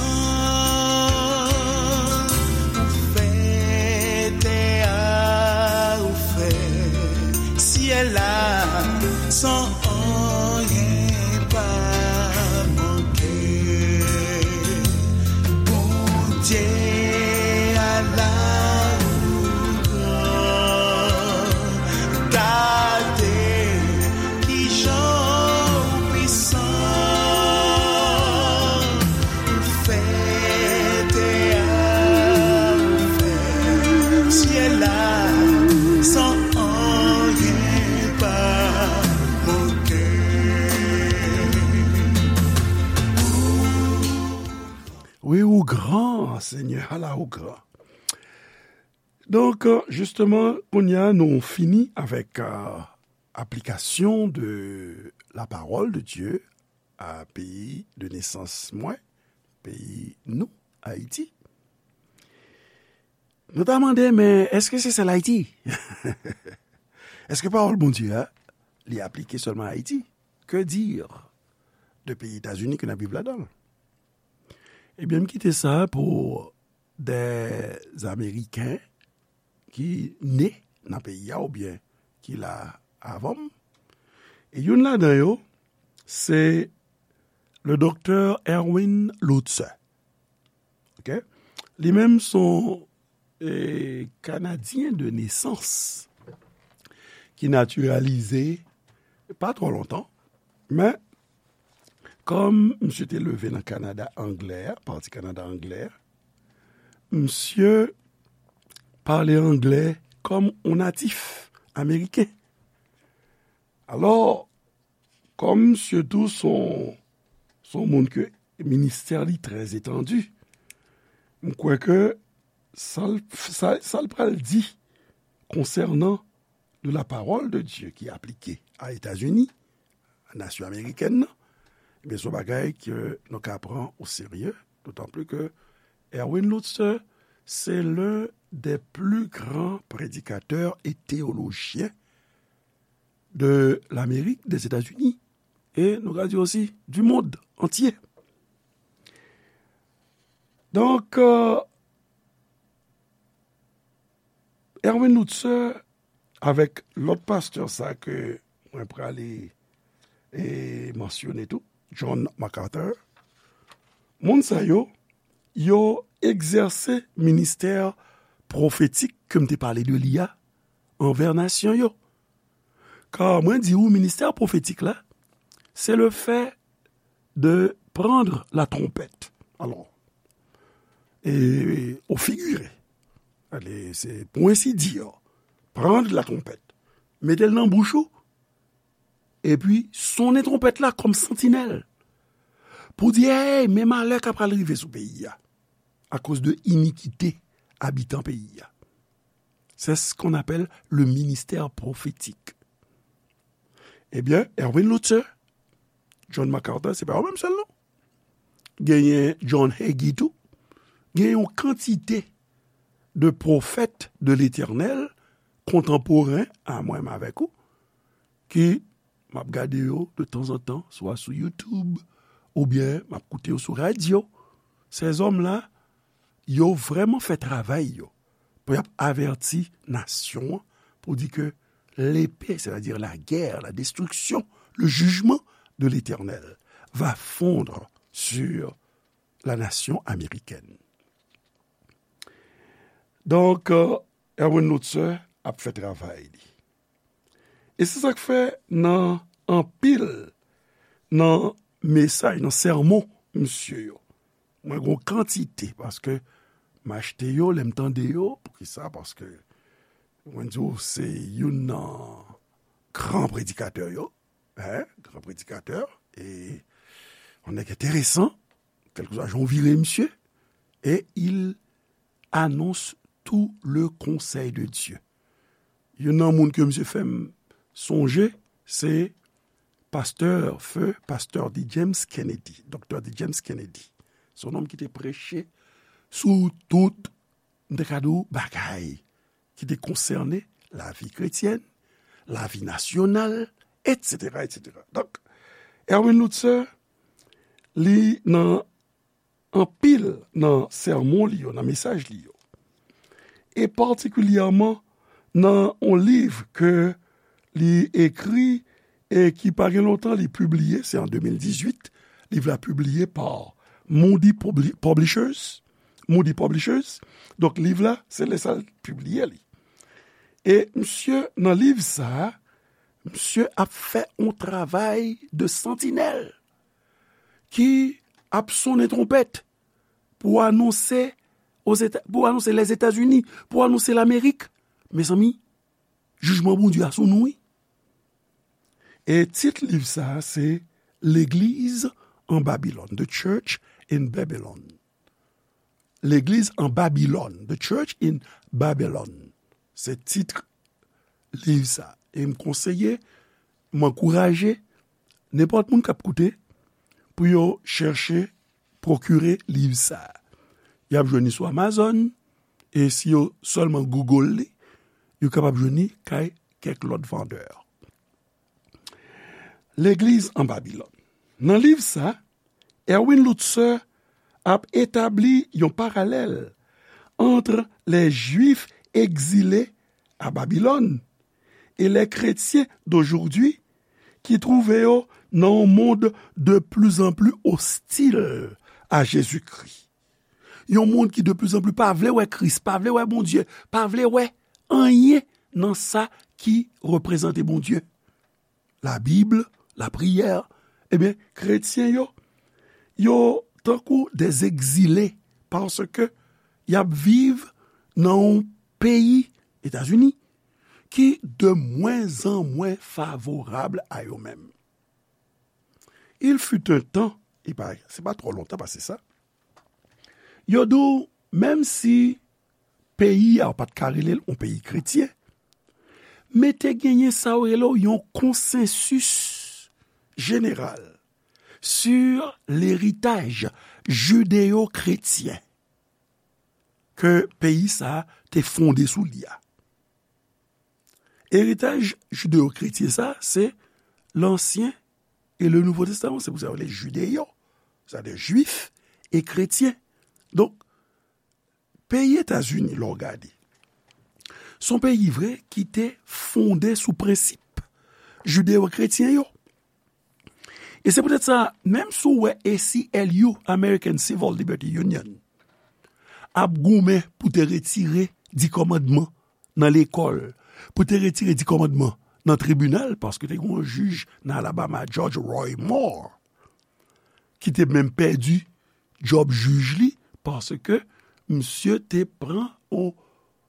ou fè tè a, ou fè syèl la, san anyen pa manke. Bondye a la ou gran, gade kijan ou pwisan, ou fè tè a, ou fè syèl la, san anyen pa manke. Wi, ou gran, Senyè, ala ou gran. Donk, euh, jisteman, kounye a, nou fini avèk, euh, application de la parole de Dieu à peyi de nesans mwen, peyi nou, Ayiti. Nou ta mande, men èske se sèl Ayiti? Èske pawòl Bondye a, li aplike sèlman Ayiti? Que dire de peyi Etazini ke n ap viv ladan l? Ebyen, m kite sa pou de Ameriken ki ne nan peyi a oubyen ki la avan m. E youn ladan yo, se le doktè Erwin Lutzer. Ok? Li menm se yon, eh, Kanadyen de nesans ki natiralize pa twò lontan, men kòm misye te leve nan Kanada anglè, pati Kanada anglè, misye pale anglè kòm yon natif ameriken. Alò, kòm misye tou se yon, se yon moun ke ministè li trè etandi, m kwè ke sa l, sa, sa l pral di konsènan de la parole de Dieu ki aplike a Etazini, a nasyon amerikèn nan, ebyen, se yon bagay ke nou ka pran o serye, dotan pli ke Erwin Lutzer, c'est l'un des plus grands prédicateurs et théologiens de l'Amérique, des États-Unis, e nou ka di osi, du monde entier. Donk, euh, Erwin Lutzer avèk lòt pastè sa ke mwen prale e mansyone tou, John MacArthur, moun sa yo, yo egzèse ministè pwofetik ke m te pale de li a anvè nasyon yo. Ka mwen di ou, ministè pwofetik la, c'est le fait de prendre la trompette. Alors, et au figuré, allez, c'est pour ainsi dire, prendre la trompette, mete l nan bouch ou, epi sonnen twonpèt la kòm santinèl, pou di, hey, men malè k ap pral rive sou peyi a, akoz de inikite abitan peyi a. C'est ce qu'on appelle le ministère prophétique. Ebyen, Erwin Lutzer, John MacArthur, se pa yo menm sèl non. Genyen John Hagee tou. Gen yon kantite de pwofèt de Letènèl kontanporen a mwen menm avèk ou, ki m ap gade yo de tanzantan, swa sou YouTube, oubyen m ap koute yo sou radyo. Ces hommes-là, yo vrèman fè travay yo pou y ap avèti nasyon an, pou di ke l'épée, c'est-à-dire la guerre, la destruction, le jugement de l'Éternel va fondre sur la nation américaine. Donk, euh, Erwin Lutzer ap fè travay li. E se sa k fè nan anpil nan mesaj, nan sèmon misye yo, mwen gen yon kantite, paske m achte yo, lè m tande yo. Poukisa? Paske mwen di w, se youn nan gran predikatè yo, hein, gran predikatè, e yon nèg enteresan, kèlkeswa jan w vire misye, et il annonce tout le conseil de Dieu. Youn nan moun ke misye fè m sonje, se pastè, feu pastè D. James Kennedy, doktè D. James Kennedy. Se yon nonm ki te preche sou tout, m te ka di w, bagay ki te konsène lavi kretyèn, lavi nasyonal, et cetera, et cetera. Donk, Erwin Lutzer, li nan anpil nan sèmon li yo, nan mesaj li yo, e patikilyèman nan yon liv ke li ekri e ki pa gen lontan li pibliye, se an de mil dizuit, liv la pibliye pa Moody Publi-, Publishers, Moody Publishers. Donk, liv la, se lè sa l pibliye li. E misye, nan liv sa a, misye ap fè yon travay de santinèl ki ap sonnen twonpèt pou anonse Ozeta-, pou anonse Lèzetazini, pou anonse Lamerik. Mezanmi, jijman Bondye a sou nou, wi. E tit liv sa a se Legliz an Babilòn, The Church in Babylon. Legliz an Babilòn, The Church in Babylon. Se tit liv sa. E m konseye, m ankouraje nenpòt moun k ap koute pou yo chèche pwokire liv sa. Y ap jwenn li sou Amazon, e si yo sèlman Google li, yo kapab jwenn li kay kèk lòt vandè. Legliz an Babilòn. Nan liv sa, Erwin Lutzer ap etabli yon paralèl ant les Juifs exilés à Babylone et les chrétiens d'aujourd'hui ki twouve yo nan yon mond de plus en plus hostile à Jésus-Christ. Yon mond ki de plus en plus pa vle wè Kris, pa vle wè Bondye, pa vle wè anyen nan sa ki reprezante Bondye. Labib, lapriyè, ebyen, kretyen yo, yo tankou des exilés, paske y ap viv nan yon peyi, Etazini, ki de moins en moins favorab a yo menm. Il fut un temps, e pa, se pa twò lontan pase sa, yo di w, menm si peyi a, ou pa t ka rele l yon peyi kretyen, men te genyen sa yo rele w yon konsansis jeneral sur leritaj jideyo-kretyen ke peyi sa a te fonde sou li a. Eritaj jideyo-kretyen sa a, se Lansyen e le Nouvo Testaman. Se pou sa yo rele jideyo, sètadi jwif e kretyen. Donk, peyi Etazini, lè w gade, se yon peyi vre ki te fonde sou prensip jideyo-kretyen yo. E se poutèt sa, menm si w wè A C L U, American Civil Liberty Union, ap goumen pou te retire Di Kòmandman nan lekòl, pou te retire Di Kòmandman nan tribinal, paske te gen yon jij nan Alabama, Judge Roy Moore, ki te menm pèdi djòb jij li, paske misye te pran yon,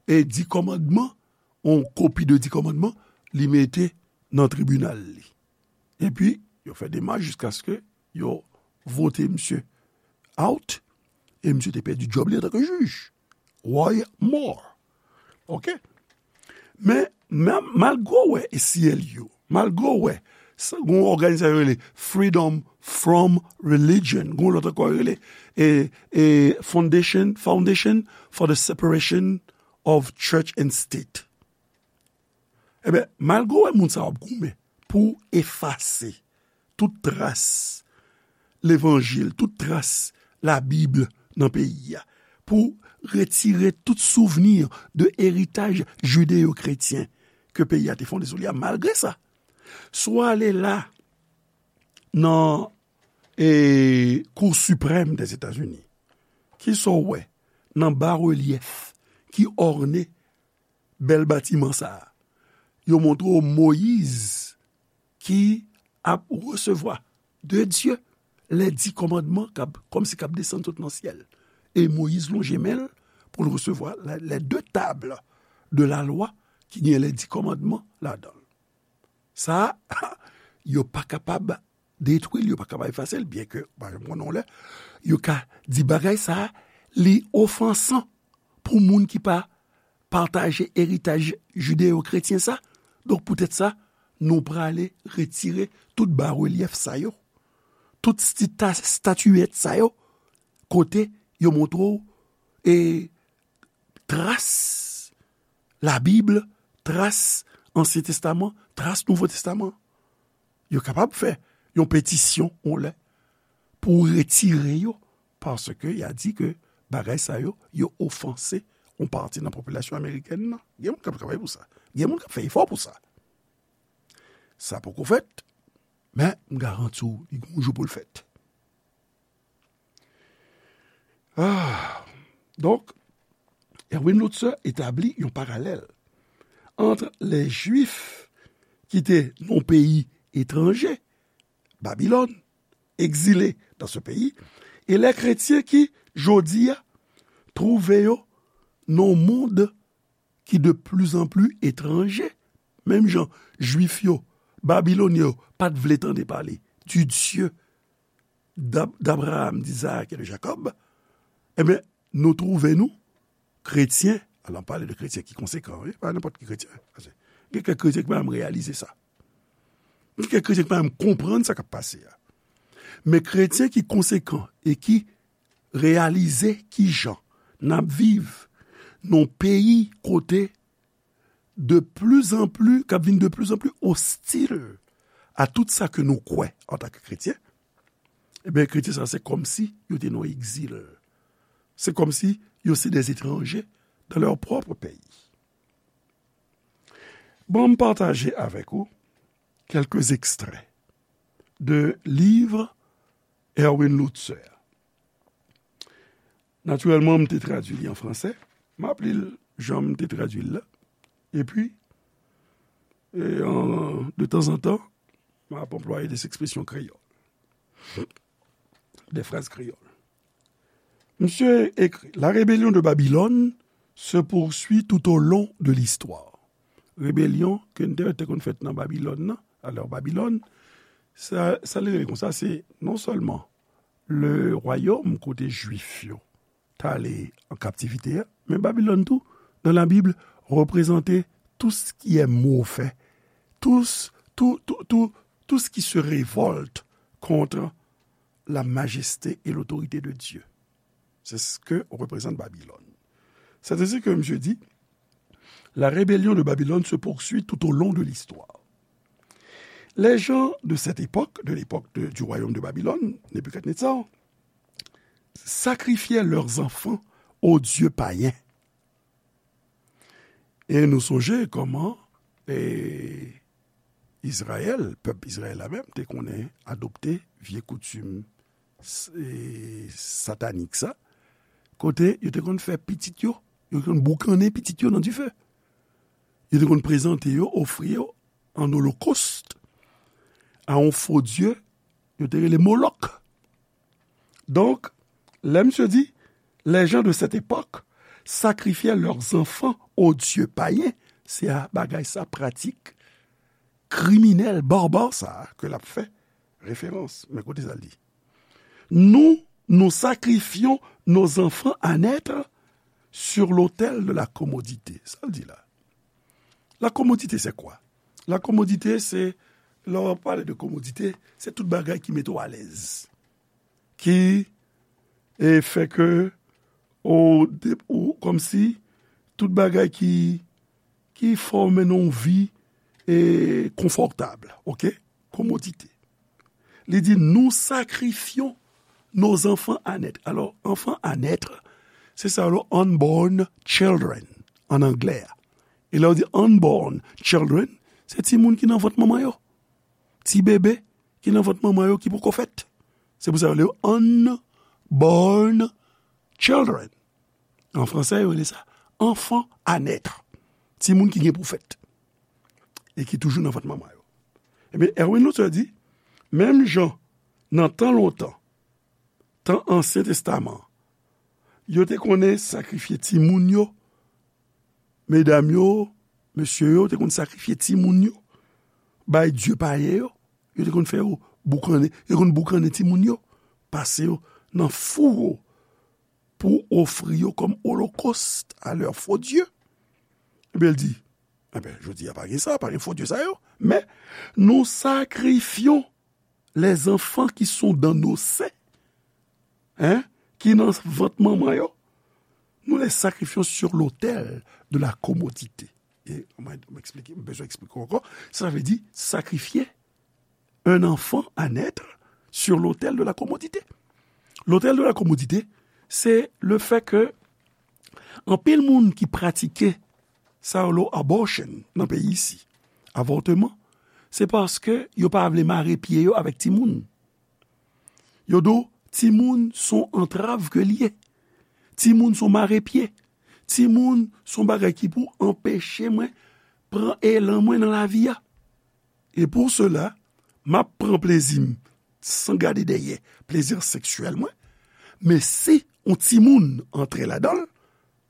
e, Di Kòmandman, yon kopi de Di Kòmandman, li mete nan tribinal li. Epi, yo fè demach jiskaske yo vote misye out, e misye te pèdi djòb li antanke jij. Roy Moore. Oke? Men, men, malgre w wè A C L U, malgre w wè, sa, gon òganizasyon rele Freedom from Religion, gon lòt ankò rele, e, e, Foundation, Foundation for the Separation of Church and State. Ebyen, malgre w wè moun sa yo ap goumen pou efase tout tras levanjil, tout tras Labib nan peyi a, pou retire tout souvni de eritaj jideyo-kretyen ke peyi a te fonde sou li a, malgre sa, si w ale la, nan, e, Kou Siprèm dèzetazini, kisa w wè nan barelyèf ki òne bèl batiman sa a? Yo montre w Moyiz ki ap resevwa de Dye lè Di Kòmandman k ap, kòmsi k ap desann sot nan syèl. E Moyiz lonje men l pou l resevwa la, les deux tables de la loi ki gen les dix commandements ladan l. Sa a, yo pa kapab detwi l, yo pa kapab efase l, byenke, pa janm konnen yon lè, yo ka di bagay sa a, li ofansan pou moun ki pa pataje eritaj jideyo-kretyen sa. Donk, poutèt sa, nou prale retire tout barelyèf sa yo, tout stita-, statiyèt sa yo, kote yo montre w, e, tras Labib, tras Ansyen Testaman, tras Nouvo Testaman. Yo kapab fè yon petisyon, yon lè, pou retire yo, paske y a di ke bagay sa yo, yo ofanse yon pati nan popilasyon amerikèn nan. Gen moun k ap travay pou sa. Gen moun k ap fè efò pou sa. Sa poko fèt, men m garanti w, li gon jou pou l fèt. Ah, donk, Erwin Lutzer etabli yon paralèl ant lè Jwif ki te nan yon peyi etranje, Babilòn, egzile dans ce pays, e lè kretyen ki, jodi a, twouve yo nan yon mond ki de plus en plus etranje, menm jan Jwif yo, Babilonyen yo, pa t vle tande pale du Dieu d'Ab-, d'Abraham, d'Isaac et de Jacob, ebyen, nou twouve nou, kretyen, alò, m pale de kretyen ki konsekan, wi, pa nenpòt ki kretyen, paske gen kèk kretyen ki pa menm reyalize sa. Gen kèk kretyen ki pa menm konprann sa k ap pase a. Men kretyen ki konsekan e ki reyalize kijan n ap viv nan yon peyi kote de plus en plus, k ap vin de plus en plus ostil a tout sa ke nou kwè antanke kretyen, ebyen, kretyen sa, se kòmsi yo te nan egzil. Se kòmsi yo se des étrangers dans leur propre pays. Bon, m pataje avèk ou quelques extraits de livre Erwin Lutzer. Natirèlman, m te tradui li an fransè. M ap li l jan m te tradui l la. Epi, e, an, de tanzantan, m ap anplwaye des expressions créoles, des phrases créoles. Misye ekri, La rébellion de Babylone se poursuit tout au long de l'histoire. Rebelyon ke n te wè te konn fèt nan Babilòn nan, alò Babilòn, sa, sa li rele konsa, se non sèlman le royaume kote Jwif yo t ale an kaptivite a, men Babilòn tou, dans la Bible, représente tout ce qui est mauvais, tout, tout, tout, tout, tout ce qui se révolte contre la majesté et l'autorité de Dieu. C'est ce que représente Babylone. C'est ainsi que monsieur dit, la rébellion de Babylone se poursuit tout au long de l'histoire. Les gens de cette époque, de l'époque de, du royaume de Babylone, Nebuchadnezzar, sacrifiaient leurs enfants aux dieux païens. E nou sonje kòman, e, Izrayèl, pèp Izrayèl la menm, te konnen adopte vye koutim s-, e, satanik sa, kote yo te konn fè pitit yo, yo te konn boukannen pitit yo nan dife. Yo te konn prezante yo, ofri yo an olokòst a yon fo dye, yo te rele Molòk. Donk, lè misye di, les gens de cette époque sacrifiaient leurs enfants aux dieux païens, se a bagay sa, pratik kriminèl, barbar sa a ke l ap fè referans. Men koute sa l di. Nous, nous sacrifions nos enfants à naître sur l'autel de la commodité. Sa l di la. La commodité, c'est quoi? La commodité, se, lè w ap pale de commodité, se tout bagay ki mete w alèz. Ki, e, fè ke, ou, de, ou, kòmsi, tout bagay ki, ki fè w mennen yon vi, e, konfòtab, oke? Commodité. Li di, nous sacrifions nos enfants à naître. Alors, enfant à naître, se sa yo rele unborn children, an anglè a. E lè yo di unborn children, se timoun ki nan vant manman yo. Ti bebe ki nan vant manman yo ki poko fèt. Se pou sa yo rele yo unborn children. An fransè, yo rele sa enfant à naître. Timoun ki gen pou fèt. E ki toujou nan vant manman yo. Ebyen, Erwin Lutzer di, menm jan nan tan lontan, tan Ansyen Testaman, yo te konnen sakrifye timoun yo, medam yo, mesye yo te konn sakrifye timoun yo, bay dye payen yo, yo te konn fè yo boukannen, yo konn boukannen timoun yo, pase yo nan fouwo pou ofri yo kòm olokòst a lè fo dye. Ebyen, l di, ebyen, jodi a pa gen sa, pa gen fo dye sa yo, men nous sacrifions les enfants qui sont dans nos seins, hein, ki nan vant manman yo, nous les sacrifions sur l'autel de la commodité. E mwen, mwen eksplike, mwen bezwen eksplike ankò, sa vle di sakrifye un enfant à naître sur l'autel de la commodité. L'autel de la commodité, c'est le fait que anpil moun ki pratike sa yo rele abortion nan peyi isi, avòtman, se paske yo pa vle mare pye yo avèk timoun. Yo di w, timoun se yon antrav ke l ye. Timoun se yon mare pye. Timoun se yon bagay ki pou anpeche mwen pran elan mwen nan lavi a. E pou sela, m ap pran plezi m san gade dèyè, plezi seksyèl mwen. Men si yon timoun antre ladan l,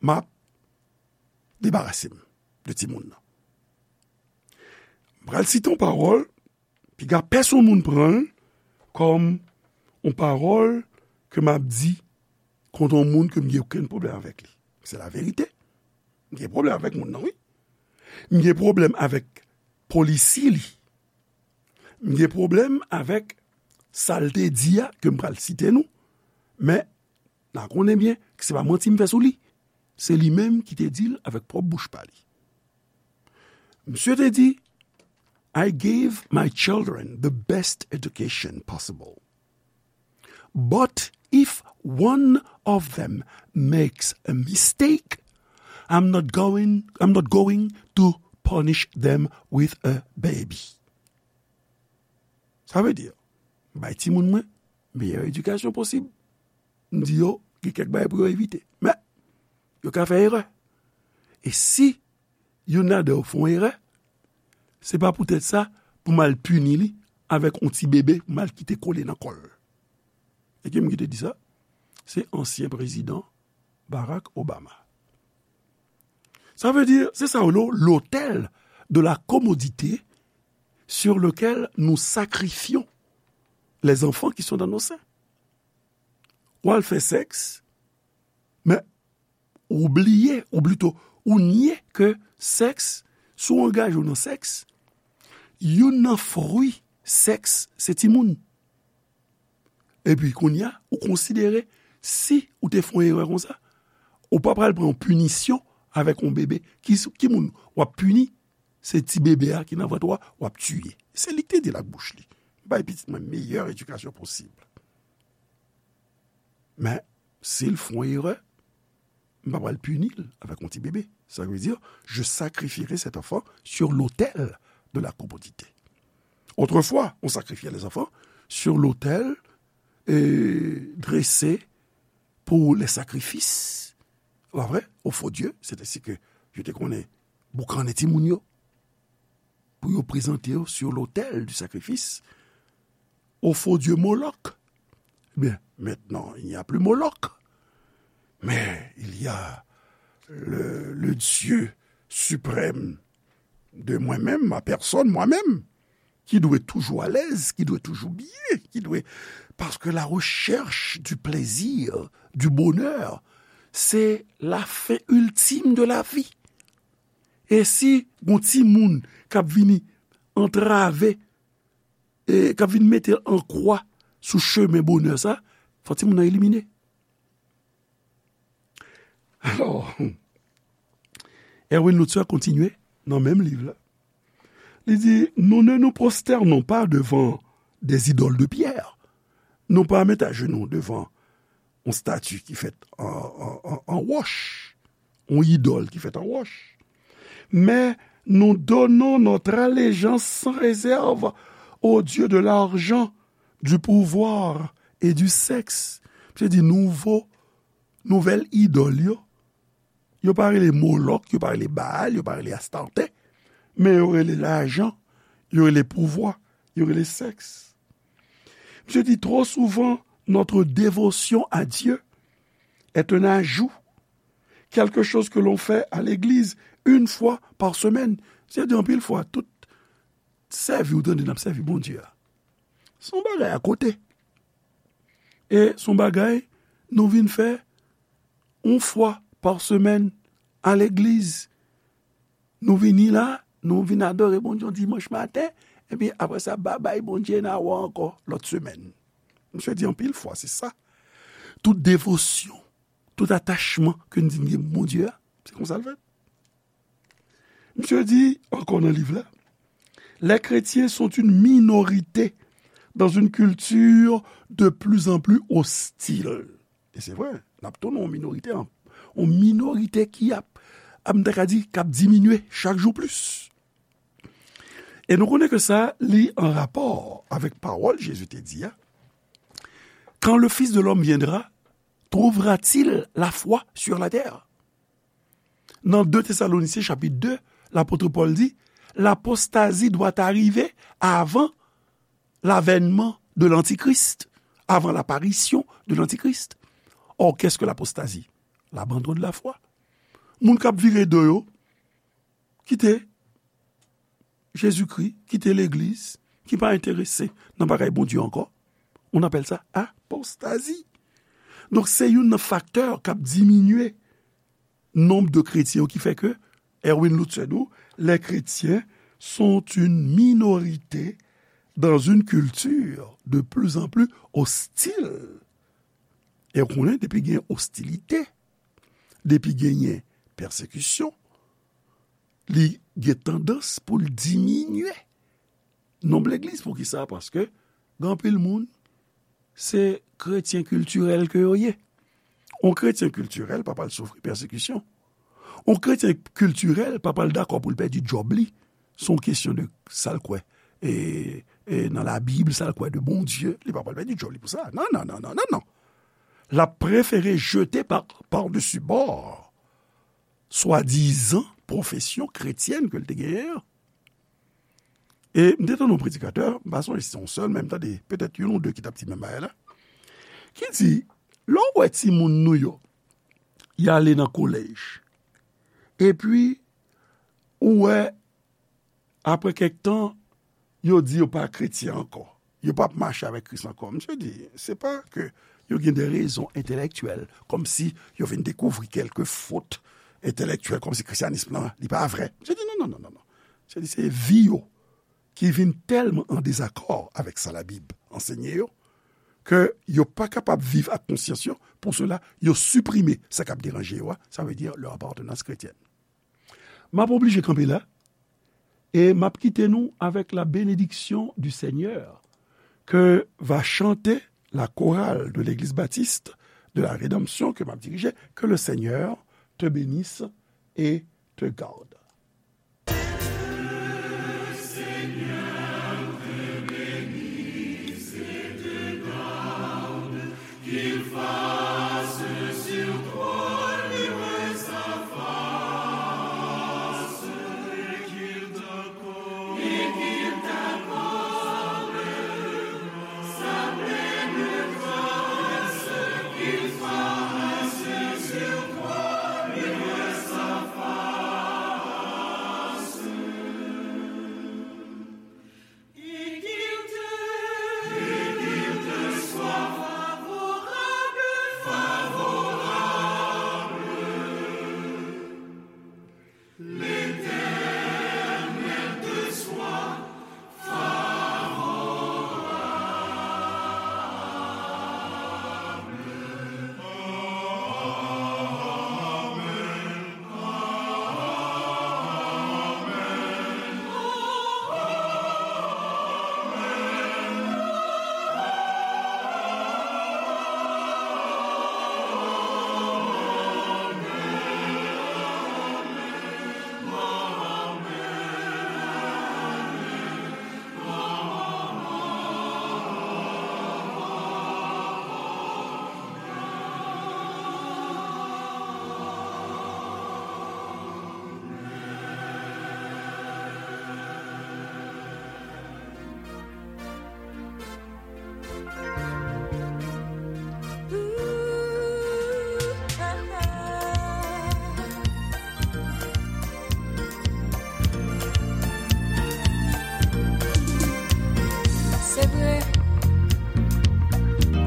m ap debarase m de timoun nan. M pral site yon pawòl, piga pèsonn moun pran l kòm yon pawòl ke m ap di kont yon moun ke m gen okenn pwoblèm avèk li. Se laverite. M gen pwoblèm avèk moun nan, wi. M gen pwoblèm avèk polisi li. M gen pwoblèm avèk sa l te di a, ke m pral site nou. Men, n a konnen byen ke se pa manti m fè sou li. Se li menm ki te di l avèk pwòp bouch pa li. Misye te di, "I gave my children the best education possible. But if one of them makes a mistake, I'm not going, I'm not going to punish them with a baby." Sa vle di, m bay timoun mwen meyè edikasyon posib. M di yo, gen kèk bagay pou yo evite. Men, yo ka fè erè. E si youn ladan yo fè yon erè, se pa poutèt sa pou m al pini li avèk yon ti bebe pou m al kite kole nan kò l. E ki moun ki te di sa? Se ansyen prezidan Barack Obama. Sa vle di, se sa yo rele l'autel de la commodité sur lequel nous sacrifions les enfants qui sont dans nos seins. Ou al fè sèks, men ou bliye, ou plito, ou nye ke sèks, si w angaje w nan sèks, youn nan fwi sèks, se timoun. Epi kounye a, ou konsidere si ou te fè yon erè konsa, ou pa pral pran yon pinisyon avèk yon bebe. Ki, ki moun w ap pini? Se ti bebe a ki nan vant ou a, w ap tiye. Se li ki te di l ak bouch li. M bay pitit mwen meyè edikasyon posib. Men, si l fè yon erè, m pa pral pini l avèk yon ti bebe. Ça veut dire, je sacrifierai cet enfant sur l'autel de la commodité. Autrefois, on sacrifiait les enfants sur l'autel, euh, dressé pour les sacrifices. Pa vre? Aux faux dieux, c'est ainsi que yo te konnen boukannen timoun yo. Pou yo prezante yo sur l'autel du sacrifice au faux dieu Moloch. Eh bien, maintenant, il n'y a plus Moloch. Mais il y a le, le Dieu suprême de moi-même, ma personne, moi-même, qui doit être toujours à l'aise, qui doit être toujours bien, qui doit, parce que la recherche du plaisir, du bonheur, c'est la fin ultime de la vie. E si gon timoun k ap vini antrave, e k ap vin mete an kwa sou chemen bonè sa, fò timoun nan elimine. Alò, Erwin Lutzer kontinye nan menm liv la. Li di, nous ne nous prosternons pas devant des idoles de pierre. Nou pa met ajenou devan yon stati ki fèt an, an, an, an wòch, yon idòl ki fèt an wòch. Mais nous donnons notre allégeance sans réserve au dieu de l'argent, du pouvoir et du sexe. Misye di nouvo, nouvèl idòl yo, yo pa rele Molòk, yo pa rele Baal, yo pa rele Astarte, men yo rele lajan, yo rele pouvwa, yo rele sèks. Misye di, trop souvent, notre dévotion à Dieu est un ajout, quelque chose que l'on fait à l'église une fois par semaine. Misye di, anpil fwa, tout sèvi ou tande n ap sèvi Bondye a, se yon bagay akote. E se yon bagay nou vin fè yon fwa pa semèn a legliz. Nou vini la, nou vin adore Bondye yon dimanch maten, epi apre sa, babay Bondye, n a wè w ankò lòt semèn. Misye di anpil fwa, se sa. Tout devosyon, tout atachman ke n di n gen pou Bondye a, se konsa l fèt. Misye di ankò nan liv la, les chrétiens sont une minorité dans une culture de plus en plus hostile. E se vre, n ap tounen yon minorite, yon minorite ki ap, ap, m ta ka di, k ap diminye chak jou plis. E nou konnen ke sa, li an rapò avèk pawòl Jezi te di a, Quand le Fils de l'homme viendra, trouvera-t-il la foi sur la terre? Nan de Tesalonisyen chapit de, lapot Pòl di, l'apostasie doit arriver avant l'avènement de l'Antichrist, avant l'apparition de l'Antichrist. Or, qu'est-ce que l'apostasie? L'abandon de la foi. Moun k ap vire do yo, kite Jezikri, kite legliz, ki pa enterese nan bagay Bondye ankò. On appelle ça apostasie. Donk, se youn nan faktè k ap diminye nonb de kretyen yo ki fè ke Erwin Lutzer di w, les chrétiens sont une minorité dans une culture de plus en plus hostile. E w konnen, depi gen ostilite, depi genyen pèsekisyon, li gen tandans pou l diminye nonb legliz. Poukisa? Paske gen anpil moun, se kretyen kiltirèl ke yo ye. On kretyen kiltirèl pa pral soufri pèsekisyon. On kretyen kiltirèl pa pral dakò pou l pèdi djòb li. Se yon kesyon de sa l kwè. E, e nan Labib, sa l kwè de Bondye, li pa pral pèdi djòb li pou sa. Non, non, non, non, non, non. L ap prefere jete pa, pa desi bò swadizan pwofesyon kretyèn ke l te genyen an. E m te tande yon predikatè, m pa sonje si se yon sèl, men m tande petèt youn ou de ki t ap di menm bagay la, ki di, lè w wè timoun nou yo, y ale nan kolèj, epi ou wè, apre kèk tan, yo di yo pa kretyen ankò, yo p ap mache avèk Kris ankò. Misye di, se pa ke yo gen de rezon entèlèktyèl, kòmsi yo vin dekouvri kèlke fot entèlèktyèl, kòmsi kristyanism lan, li pa vrè. Misye di, non, non, non, non, non. Misye di, se vi yo ki vin tèlman an dezakò avèk sa Labib ansenye yo, ke yo pa kapab viv ak konsyans yo, pou sela, yo siprime sa k ap deranje yo a, sa vle di leur appartenance chrétienne. M ap oblije kanpe la, e m ap kite nou avec la bénédiction du Seigneur que va chanter la chorale de l'Église Baptiste de la Rédemption que m ap dirije, que le Seigneur te bénisse et te garde.